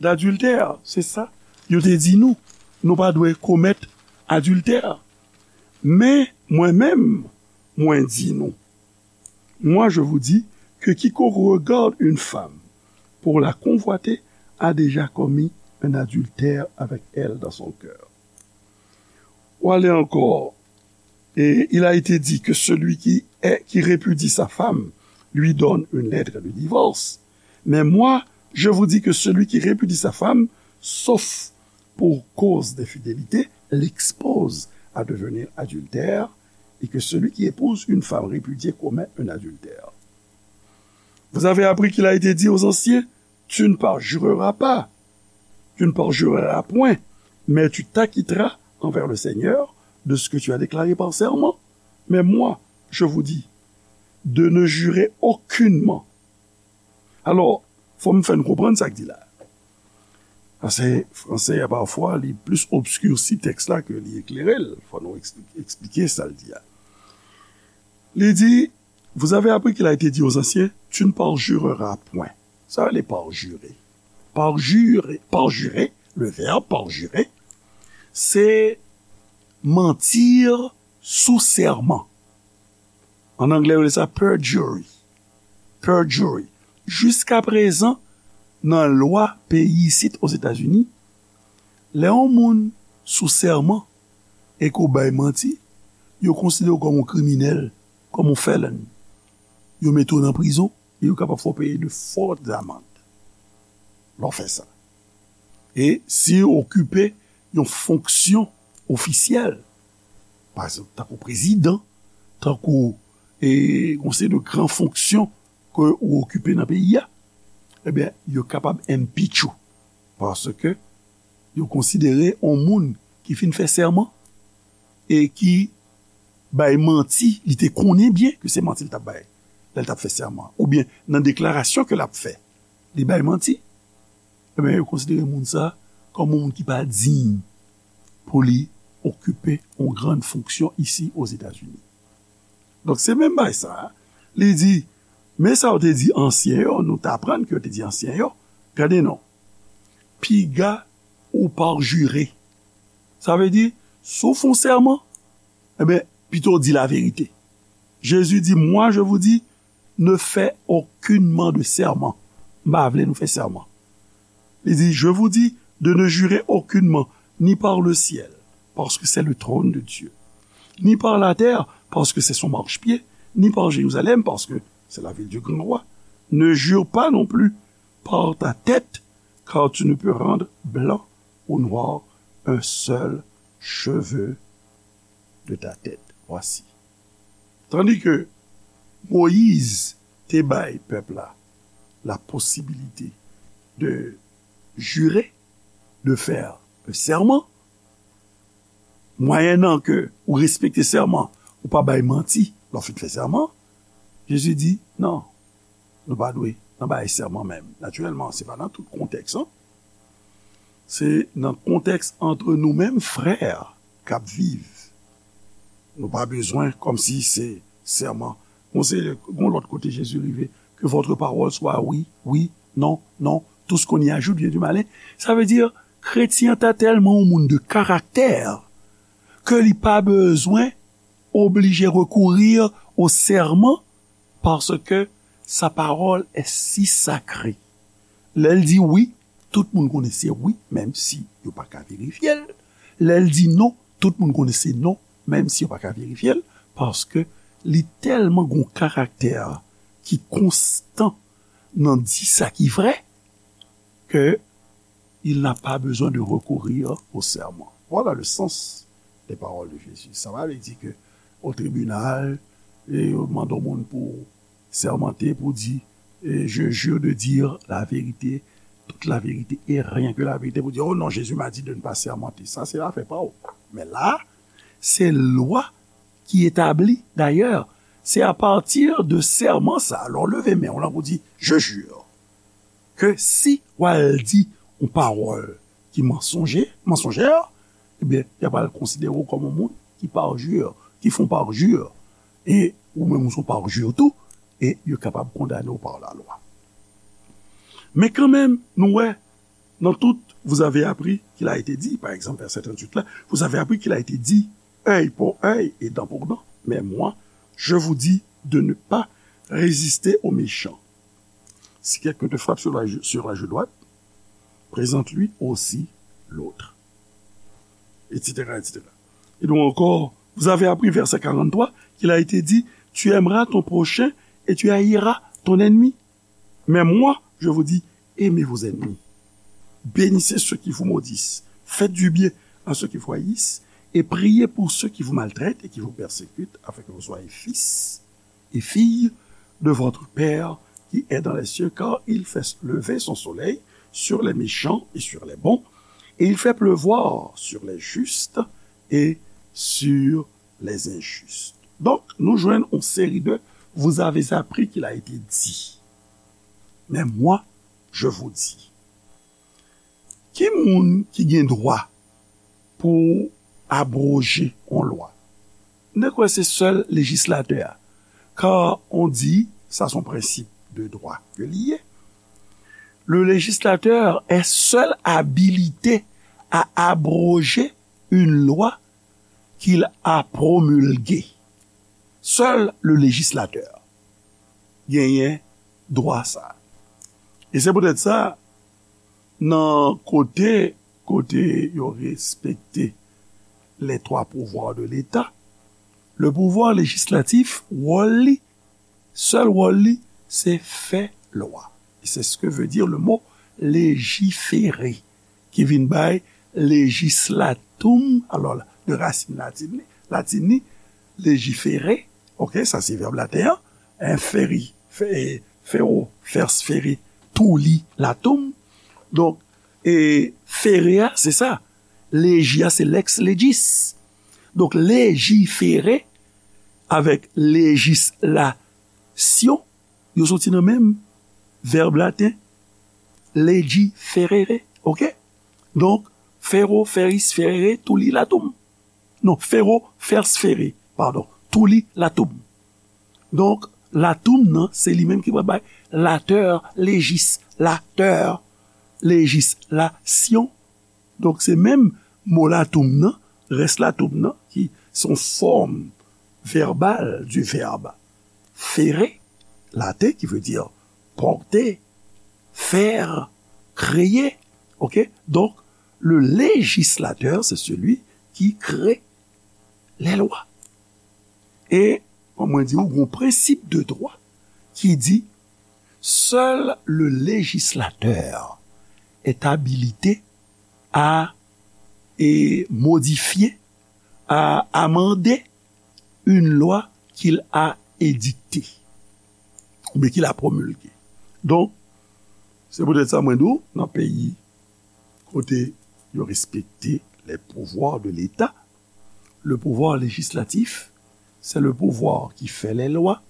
d'adultère. Se sa yo te di nou. Nou pa dwe komèt adiltè. Men, mwen menm, mwen di nou, moi, je vous dis que quiconque regarde une femme pour la convoiter a déjà commis un adultère avec elle dans son cœur. Ou ale ankò, et il a été dit que celui qui est, qui répudie sa femme lui donne une lettre de divorce. Mais moi, je vous dis que celui qui répudie sa femme, sauf pour cause d'infidélité, l'expose à devenir adultère, et que celui qui épouse une femme répudiée commet un adultère. Vous avez appris qu'il a été dit aux anciens, tu ne parjureras pas, tu ne parjureras point, mais tu t'acquitteras envers le Seigneur de ce que tu as déclaré par serment. Mais moi, je vous dis de ne jurer aucunement. Alò, fò m fè n konprann sa k di la. Paske franse a, pafwa, li plis obskirsi tèks la ke li eklere l. Fò nou eksplike, eksplike sa l di a. Li di, vous avez appris qu'il a été dit aux anciens, tu ne parjureras point. Sa vle parjure. Parjure, parjure, le verbe parjure, c'est mentir sous serment. An anglè, yo rele sa perjury. Perjury. Jiska prezan, nan lwa peyi isit Ozetazini, lè yon moun sou sèman e ke w bay manti, yo konsidere w kòm yon kriminèl, kòm yon felon. Yo mete w nan prizon e yo kapab fè w peye de fòt amann lè w fè sa. E si w okipe yon fonksyon ofisyèl, pa egzanp, tankou prezidan, tankou, e, yon seri de gran fonksyon ke ou okipe nan peyi a, ebyen, yo kapab impeach ou. Paske yo konsidere yon moun ki fin fè sèman e ki bay manti, li te konnen byen ke se manti l t ap bay lè l t ap fè sèman, oubyen nan deklarasyon ke l ap fè, li bay manti, ebyen, yo konsidere moun sa a kòm yon moun ki pa diy pou li okipe yon gran fonksyon isi Ozetazini. Donk, se menm bagay sa a. Li di, men sa yo te di ansyen yo, nou t aprann ke yo te di ansyen yo, gade non, piga ou parjire. Sa vle di, si w fè yon sèman, ebyen, pito w di laverite. Jezi di, moi, je vous dis, ne fais aucunement de serment. M pa vle nou fè sèman. Li di, je vous dis de ne jurer aucunement, ni par le ciel, parce que c'est le trône de Dieu, ni par la terre, parce que c'est son marchepied, ni par Jérusalem, parce que c'est la ville du grand roi. Ne jure pas non plus par ta tête, car tu ne peux rendre blanc ou noir un seul cheveu de ta tête. Voici. Tandis que Moïse te bay pèp la la posibilite de jure, de fè sèman, mwayennan ke ou respekte sèman, ou pa bay manti lè w fin fè sèman, Jezi di, non, nou pa dwe nan bay sèman menm. Natirèlman, se pa nan tout kontèks, an. Se nan kontèks ant nou menm frè k ap viv. Nou pa bezwen kòmsi se sèman. Bon, se yon lòt kote Jezi rive, que votre parole soit oui, oui, non, non, tout ce qu'on y ajoute vient du malin. Sa vle di, kretyen an ta tèlman yon moun de karaktè ke li pa bezwen oblije rekourir o sèman, paske sa pawòl è si sakre. Lè l di wi, tout moun konnen se wi, menm si yo pa ka verifye l. Lè l di non, tout moun konnen se non, menm si yo pa ka verifye l, paske li tèlman gon karaktè ki konstan nan di sa ki vrè, ke il n'a pas besoin de recourir au serment. Voilà le sens des paroles de Jésus. Sa pa vle di ke o tribinal, e yo mande yon moun pou sèmante, pou di, e, je jure de dire la vérité, toute la vérité et rien que la vérité, pou di, oh non, Jésus m'a dit de ne pas sermenter. Sa se afè pa w. Men la, se lwa ki etabli. Dayè, se apati de sèman sa, lè w leve men w lan pou di, je jure. ke si w al di yon pawòl ki mansonje, mansonjè, ebyen, y ap al konsidere w kòm yon moun ki parjure, ki fè yon parjure. E ou menm ou se yon parjure tou, e yo kapab kondane w pa lalwa. Men kanmenm, nou wè, dans tout, vous avez appris qu'il a été dit, par exemple, verset trente-huit là, vous avez appris qu'il a été dit, œil pour œil et dent pour dent. Mais moi, je vous dis de ne pas résister au méchant. Si quelqu'un te frappe sur la, sur la joue droite, présente-lui aussi l'autre, et cetera, et cetera. Et donc encore, vous avez appris, verset quarante-trois, qu'il a été dit, tu aimeras ton prochain et tu haïras ton ennemi. Mais moi, je vous dis, aimez vos ennemis. Bénissez ceux qui vous maudissent. Faites du bien à ceux qui vous haïssent et priez pour ceux qui vous maltraitent et qui vous persécutent, afin que vous soyez fils et filles de votre Père qui est dans les cieux, car il fait lever son soleil sur les méchants et sur les bons, et il fait pleuvoir sur les justes et sur les injustes. Donk, nou jwenn yon seri de vous avez appris qu'il a été dit. Mais moi, je vous dis. Ki moun ki gen dwa pou abroje yon lwa? M te kwè se sèl lejislatè a. Car on dit, ça c'est un principe de droit que li ye, le législateur est seul habilité à abroger une loi qu'il a promulguée. Seul le législateur genyen dwa sa. E se poutèt sa, nan kote, kote yo respekte les trois pouvoirs de l'État, le pouvoir législatif, wòl li, sèl wòl li, se fè lwa. E c'est ce que veut dire le mot légiférer, ki vin bay legislatum, alò, de rasin latin li, latin li, légiférer, ok, sa se vèb laten an, hein, feri, fe-, fero, fers feri, tuli latum. Donk, e fere a, se sa. Legi a, se lex legis. Donk, légiférer avèk législation, yo soti nan menm vèb laten, legiferere, ok? Donk, fero, feris, ferere, tuli latum. Non, fero, fers fere, padon, tuli latum. Donk, latum nan, se li menm ki pral bay later, legis, later, legislation. Donk, se menm mo latum nan, rès latum nan, ki se yon fòm vèbal du verbe fere, laten, ki vle di pòte, fè, kreye. Ok? Donk, le législateur, c'est celui qui crée les lois. E, kòm mwen di w, gon prensip de dwa ki di, seul le législateur est habilité à, et, modifier, à amender une loi qu'il a édictée, oubyen qu'il a promulguée. Donk, se poutèt sa mwen di w, nan peyi kote yo respekte les pouvoirs de l'État, le pouvoir législatif, c'est le pouvoir qui fait les lois,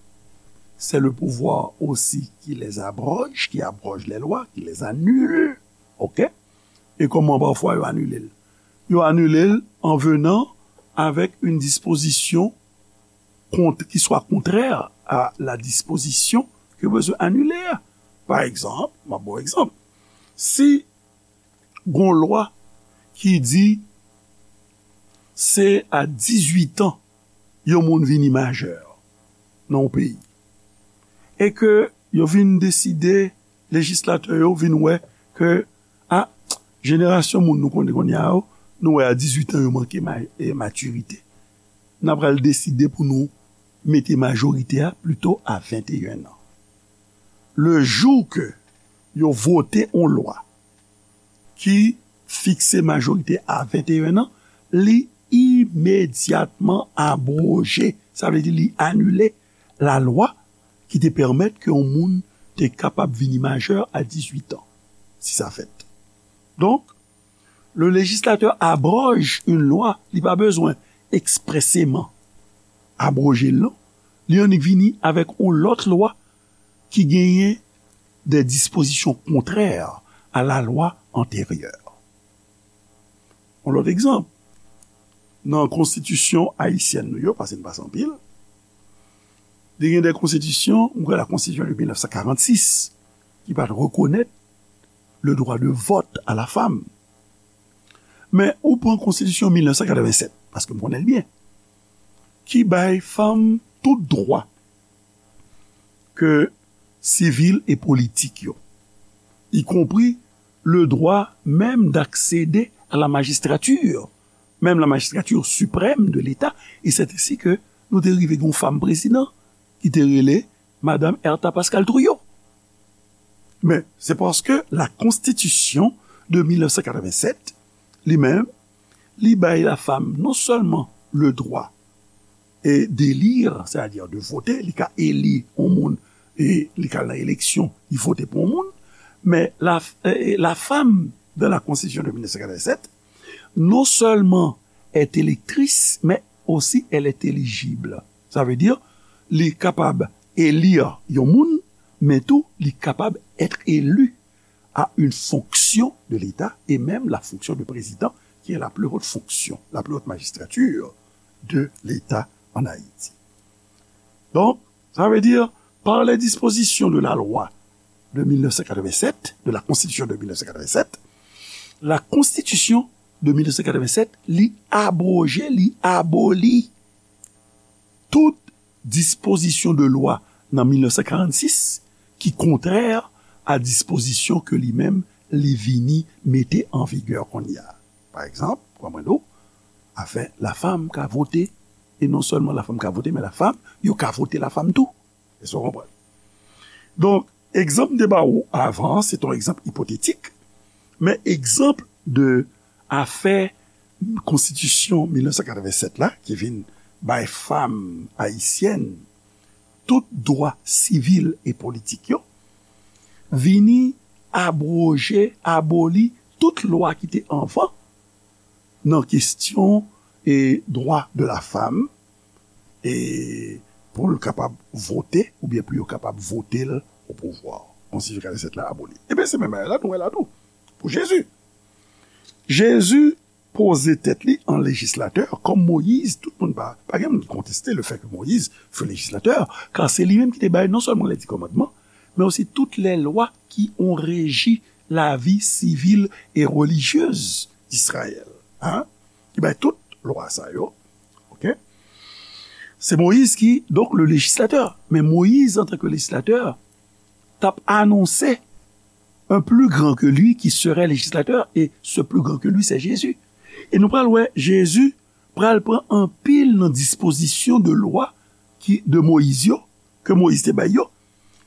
c'est le pouvoir aussi qui les abroge, qui abroge les lois, qui les annule. Ok? E kòman pafwa yo anile l? Yo anile l en venant avec une disposition kont-, qui soit contraire à la disposition ke yo bezwen anile a. Pa egzanp, m ap ba w egzanp. Si gon lwa ki di se a dizuit an yon moun vini majè nan yon peyi, e ke yo vin deside, lejislatè yo vin wè ke, a, jenerasyon moun nou konnen kounye a yo, nou wè a dizuit an yo manke ma-, e, matirite. N a pral deside pou nou mete majorite a plito a venteyen an. Le jou ke yo vote yon lwa ki fikse majorite a venteyen an, li imedyatman abwoje. Sa vle di li anile lalwa ki te pèmèt ke yon moun te kapab vini majè a dizuit an, si sa fèt. Donk, le législateur abroge une loi, li pa bezwen ekspreseman abwoje l, non. Li annik vini avèk yon lòt lwa ki genyen des dispositions contraires à la loi antérieure. Yon lòt egzanp, nan konstitisyon ayisyèn nou yo, paske n pase anpil, te gen de konstitisyon, m kwè la konstitisyon de mil nèf san karannsis, ki pa t rekonèt le droit de vote à la femme. Men ou pran konstitisyon mil nèf san katrevennsèt, paske m konnen l byen, ki bay fanm tout dwa ke sivil e politik yo, y compris le droit même d'accéder à la magistrature, même la magistrature suprême de l'État, et c'est ainsi que nou te rive gen yon fanm prezidan ki te rele Madanm Ertha Pascal Trouillot. Men se paske la konstitisyon de mil nèf san katrevennsèt, li menm, li bay la fanm non sèlman le droit e d'élire, c'est-à-dire de voter, li ka eli yon moun e li ka nan eleksyon, li vote pou yon moun, men la, eh, la femme dans la constitution de mil nèf san katrevennsèt, non seulement est électrice, mais aussi elle est éligible. Sa vle di, li kapab eli yon moun, men tou, li kapab être élu à une fonction de l'État et même la fonction de président, qui est la plus haute fonction, la plus haute magistrature de l'État en Haïti. Donc, ça veut dire, par les dispositions de la loi de mil nèf san katrevennsèt, de la Constitution de mil nèf san katrevennsèt, la Constitution de mil nèf san katrevennsèt, li abroje, li aboli tout dispozisyon de lwa nan mil nèf san karannsis ki kontrè a dispozisyon ke li menm li vini mete an vigè kounye a. Pa egzanp, kòman nou, afè lafanm ka vote, e non sèlman lafanm ka vote, men lafanm, yo ka vote lafanm tou. Èske w konprann? Donk, egzanp m te ba ou avan an, se t on egzanp ipotetik, men egzanp de afè konstitisyon mil nèf san katrevennsèt la, ki vin bay fanm ayisyèn tout dwa sivil e politik yo, vini abwoje, aboli tout lwa ki te anvan nan kesyon e dwa de la fanm, e pou l kapab vote, oubyen pou yo kapab vote l o pouvwa. Konstitisyon katrevennsèt la aboli. Ebyen, se menm bagay la nou wè la tou. Pou Jezi. Jezi poze tèt li an lejislatè, kòm Moyiz, tout moun pa, pa gen moun ki konteste le fè ke Moyiz fut législateur, car se li menm ki te bay non sèlman les dix commandements, men osi tout lè lwa ki ont régi la vie civile et religieuse d'Israël. Hein? Ki bay tout lwa sa yo. OK? Se Moyiz ki, donk, le lejislatè. Men Moyiz, antanke lejislatè, t ap anonse un plus grand que lui qui serait législateur, et ce plus grand que lui, c'est Jésus. E nou pral wè, Jezi pral pran anpil nan dispozisyon de lwa ki, de Moyiz yo, ke Moyiz te bay yo.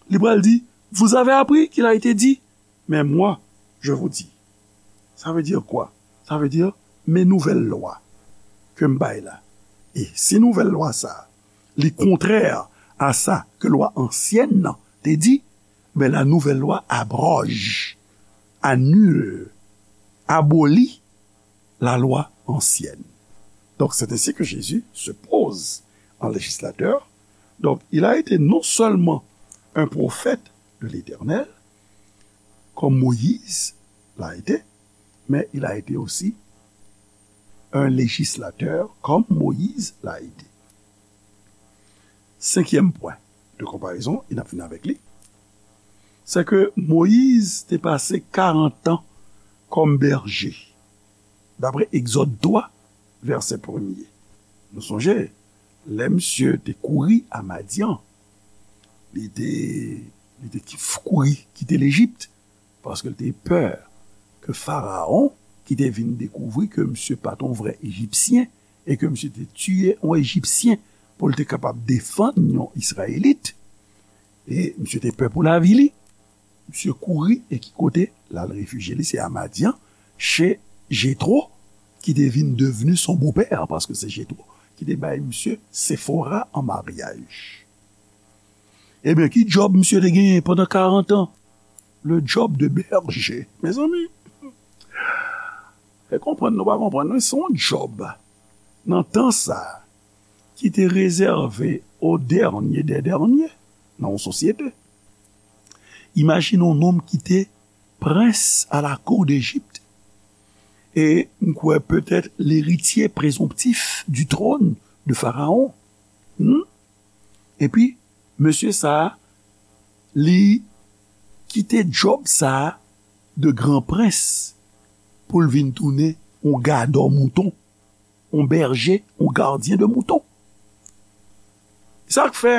Li pral di, vous avez appris qu'il a été dit, mais moi, je vous dis. Ça veut dire quoi? Ça veut dire, men nouvèl lwa ke m bay la. E si nouvèl lwa sa, li kontrè a sa ke lwa ansyèn nan te di, ben la nouvelle loi abroge, annule, abolit la loi ancienne. Donc, c'est ainsi que Jésus se pose en législateur. Donc, il a été non seulement un prophète de l'Éternel, comme Moïse l'a été, mais il a été aussi un législateur, comme Moïse l'a été. Senkyèm pwen de konparezon, e n ap fini avèk li, se ke Moyiz te pase karant an kòm bèje, dapre Egzòd twa, vèsè premye. Nou sonje, lè misye te kouri a Madyan, li te, li te ki-, kouri kite Lejip, paske l te pè ke Farawon, ki te vin dekouvri ke misye pa t yon vrè Ejipsyen, e ke misye te tiye yon Ejipsyen pou l te kapab defann yon Izrayelit, e misye te pè pou lavi li, misye kouri e ki kote l al refijye li? Se a Madyan, che Jetwo, ki te vin devni son bopè, paske se Jetwo ki te bay misye Sefora an maryaj. Ebyen, ki djòb misye te genyen pandan karant an? Le job de berger. Mezanmi, fè konprann nou pa konprann, non, se yon djòb nan tan sa a ki te rezève au dernier des derniers nan yon sosyete. Imajine yon nonm ki te prens à la cour d'Égypte. E m kwè petèt l'héritier présomptif du trône de Pharaon. Hmm? Epi, mesye sa a, li kite djòb sa a de gran prens pou l vin tounen yon gadò mouton, yon bèje, yon gadyen de mouton. Sa k fè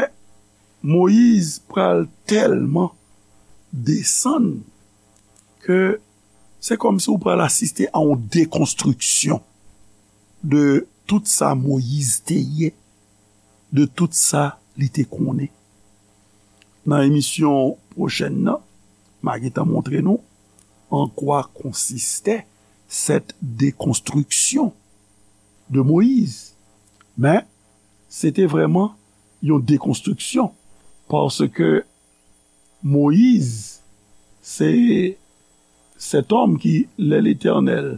Moyiz pral tèlman desann ke se kòmsi w pral asiste a yon dekonstriksyon de tout sa Moyiz te ye, de tout sa li te konnen. Nan emisyon pwochèn nan, m a gentan montre nou an kwa konsiste cette déconstruction de Moïse. Men, se te vrèman yon dekonstriksyon, paske Moyiz, se sèt òm ki, lè Letènèl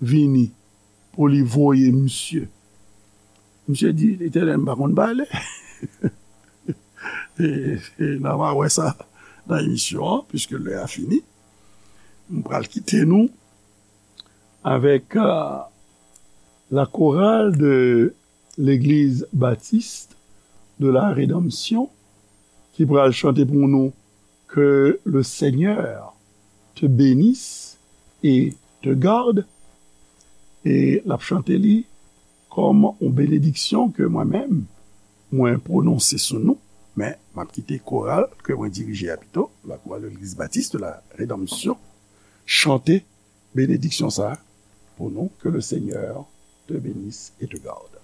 vini pou li voye misye, misye di, Letènèl, m pa konn pale. E, e n a wè sa nan emisyon an, piske lè a fini. M pral kite nou avèk, euh, la chorale de l'Église Baptiste de la Rédemption, ki pral chante pou nou Que le Seigneur te bénisse et te garde. E l ap chante li kòm yon benediksyon ke mwen menm, mwen pwononse sou nou. Men, m ap kite koral ke mwen dirije a pito, la chorale de l'Église Baptiste de la Rédemption, chante benediksyon sa a pou nou, que le Seigneur te bénisse et te garde.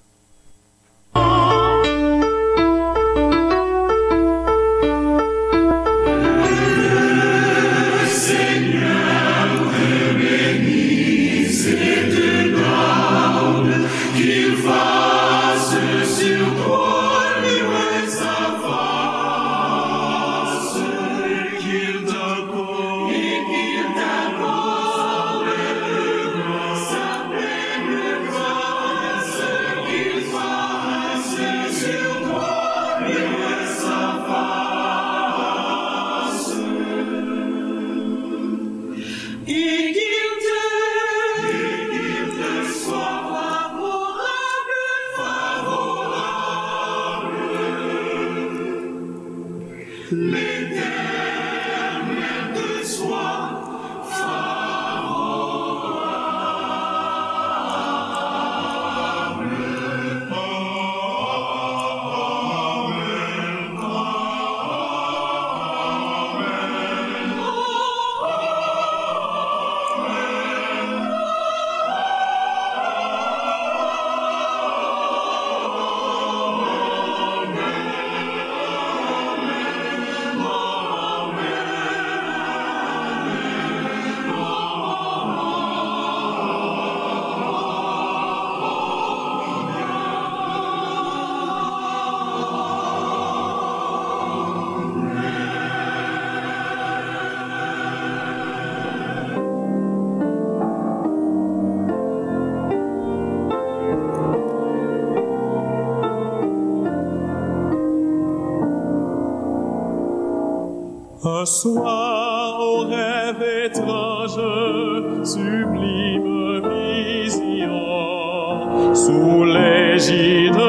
Un soir, au rêve étrange, sublime vision, sous l'égide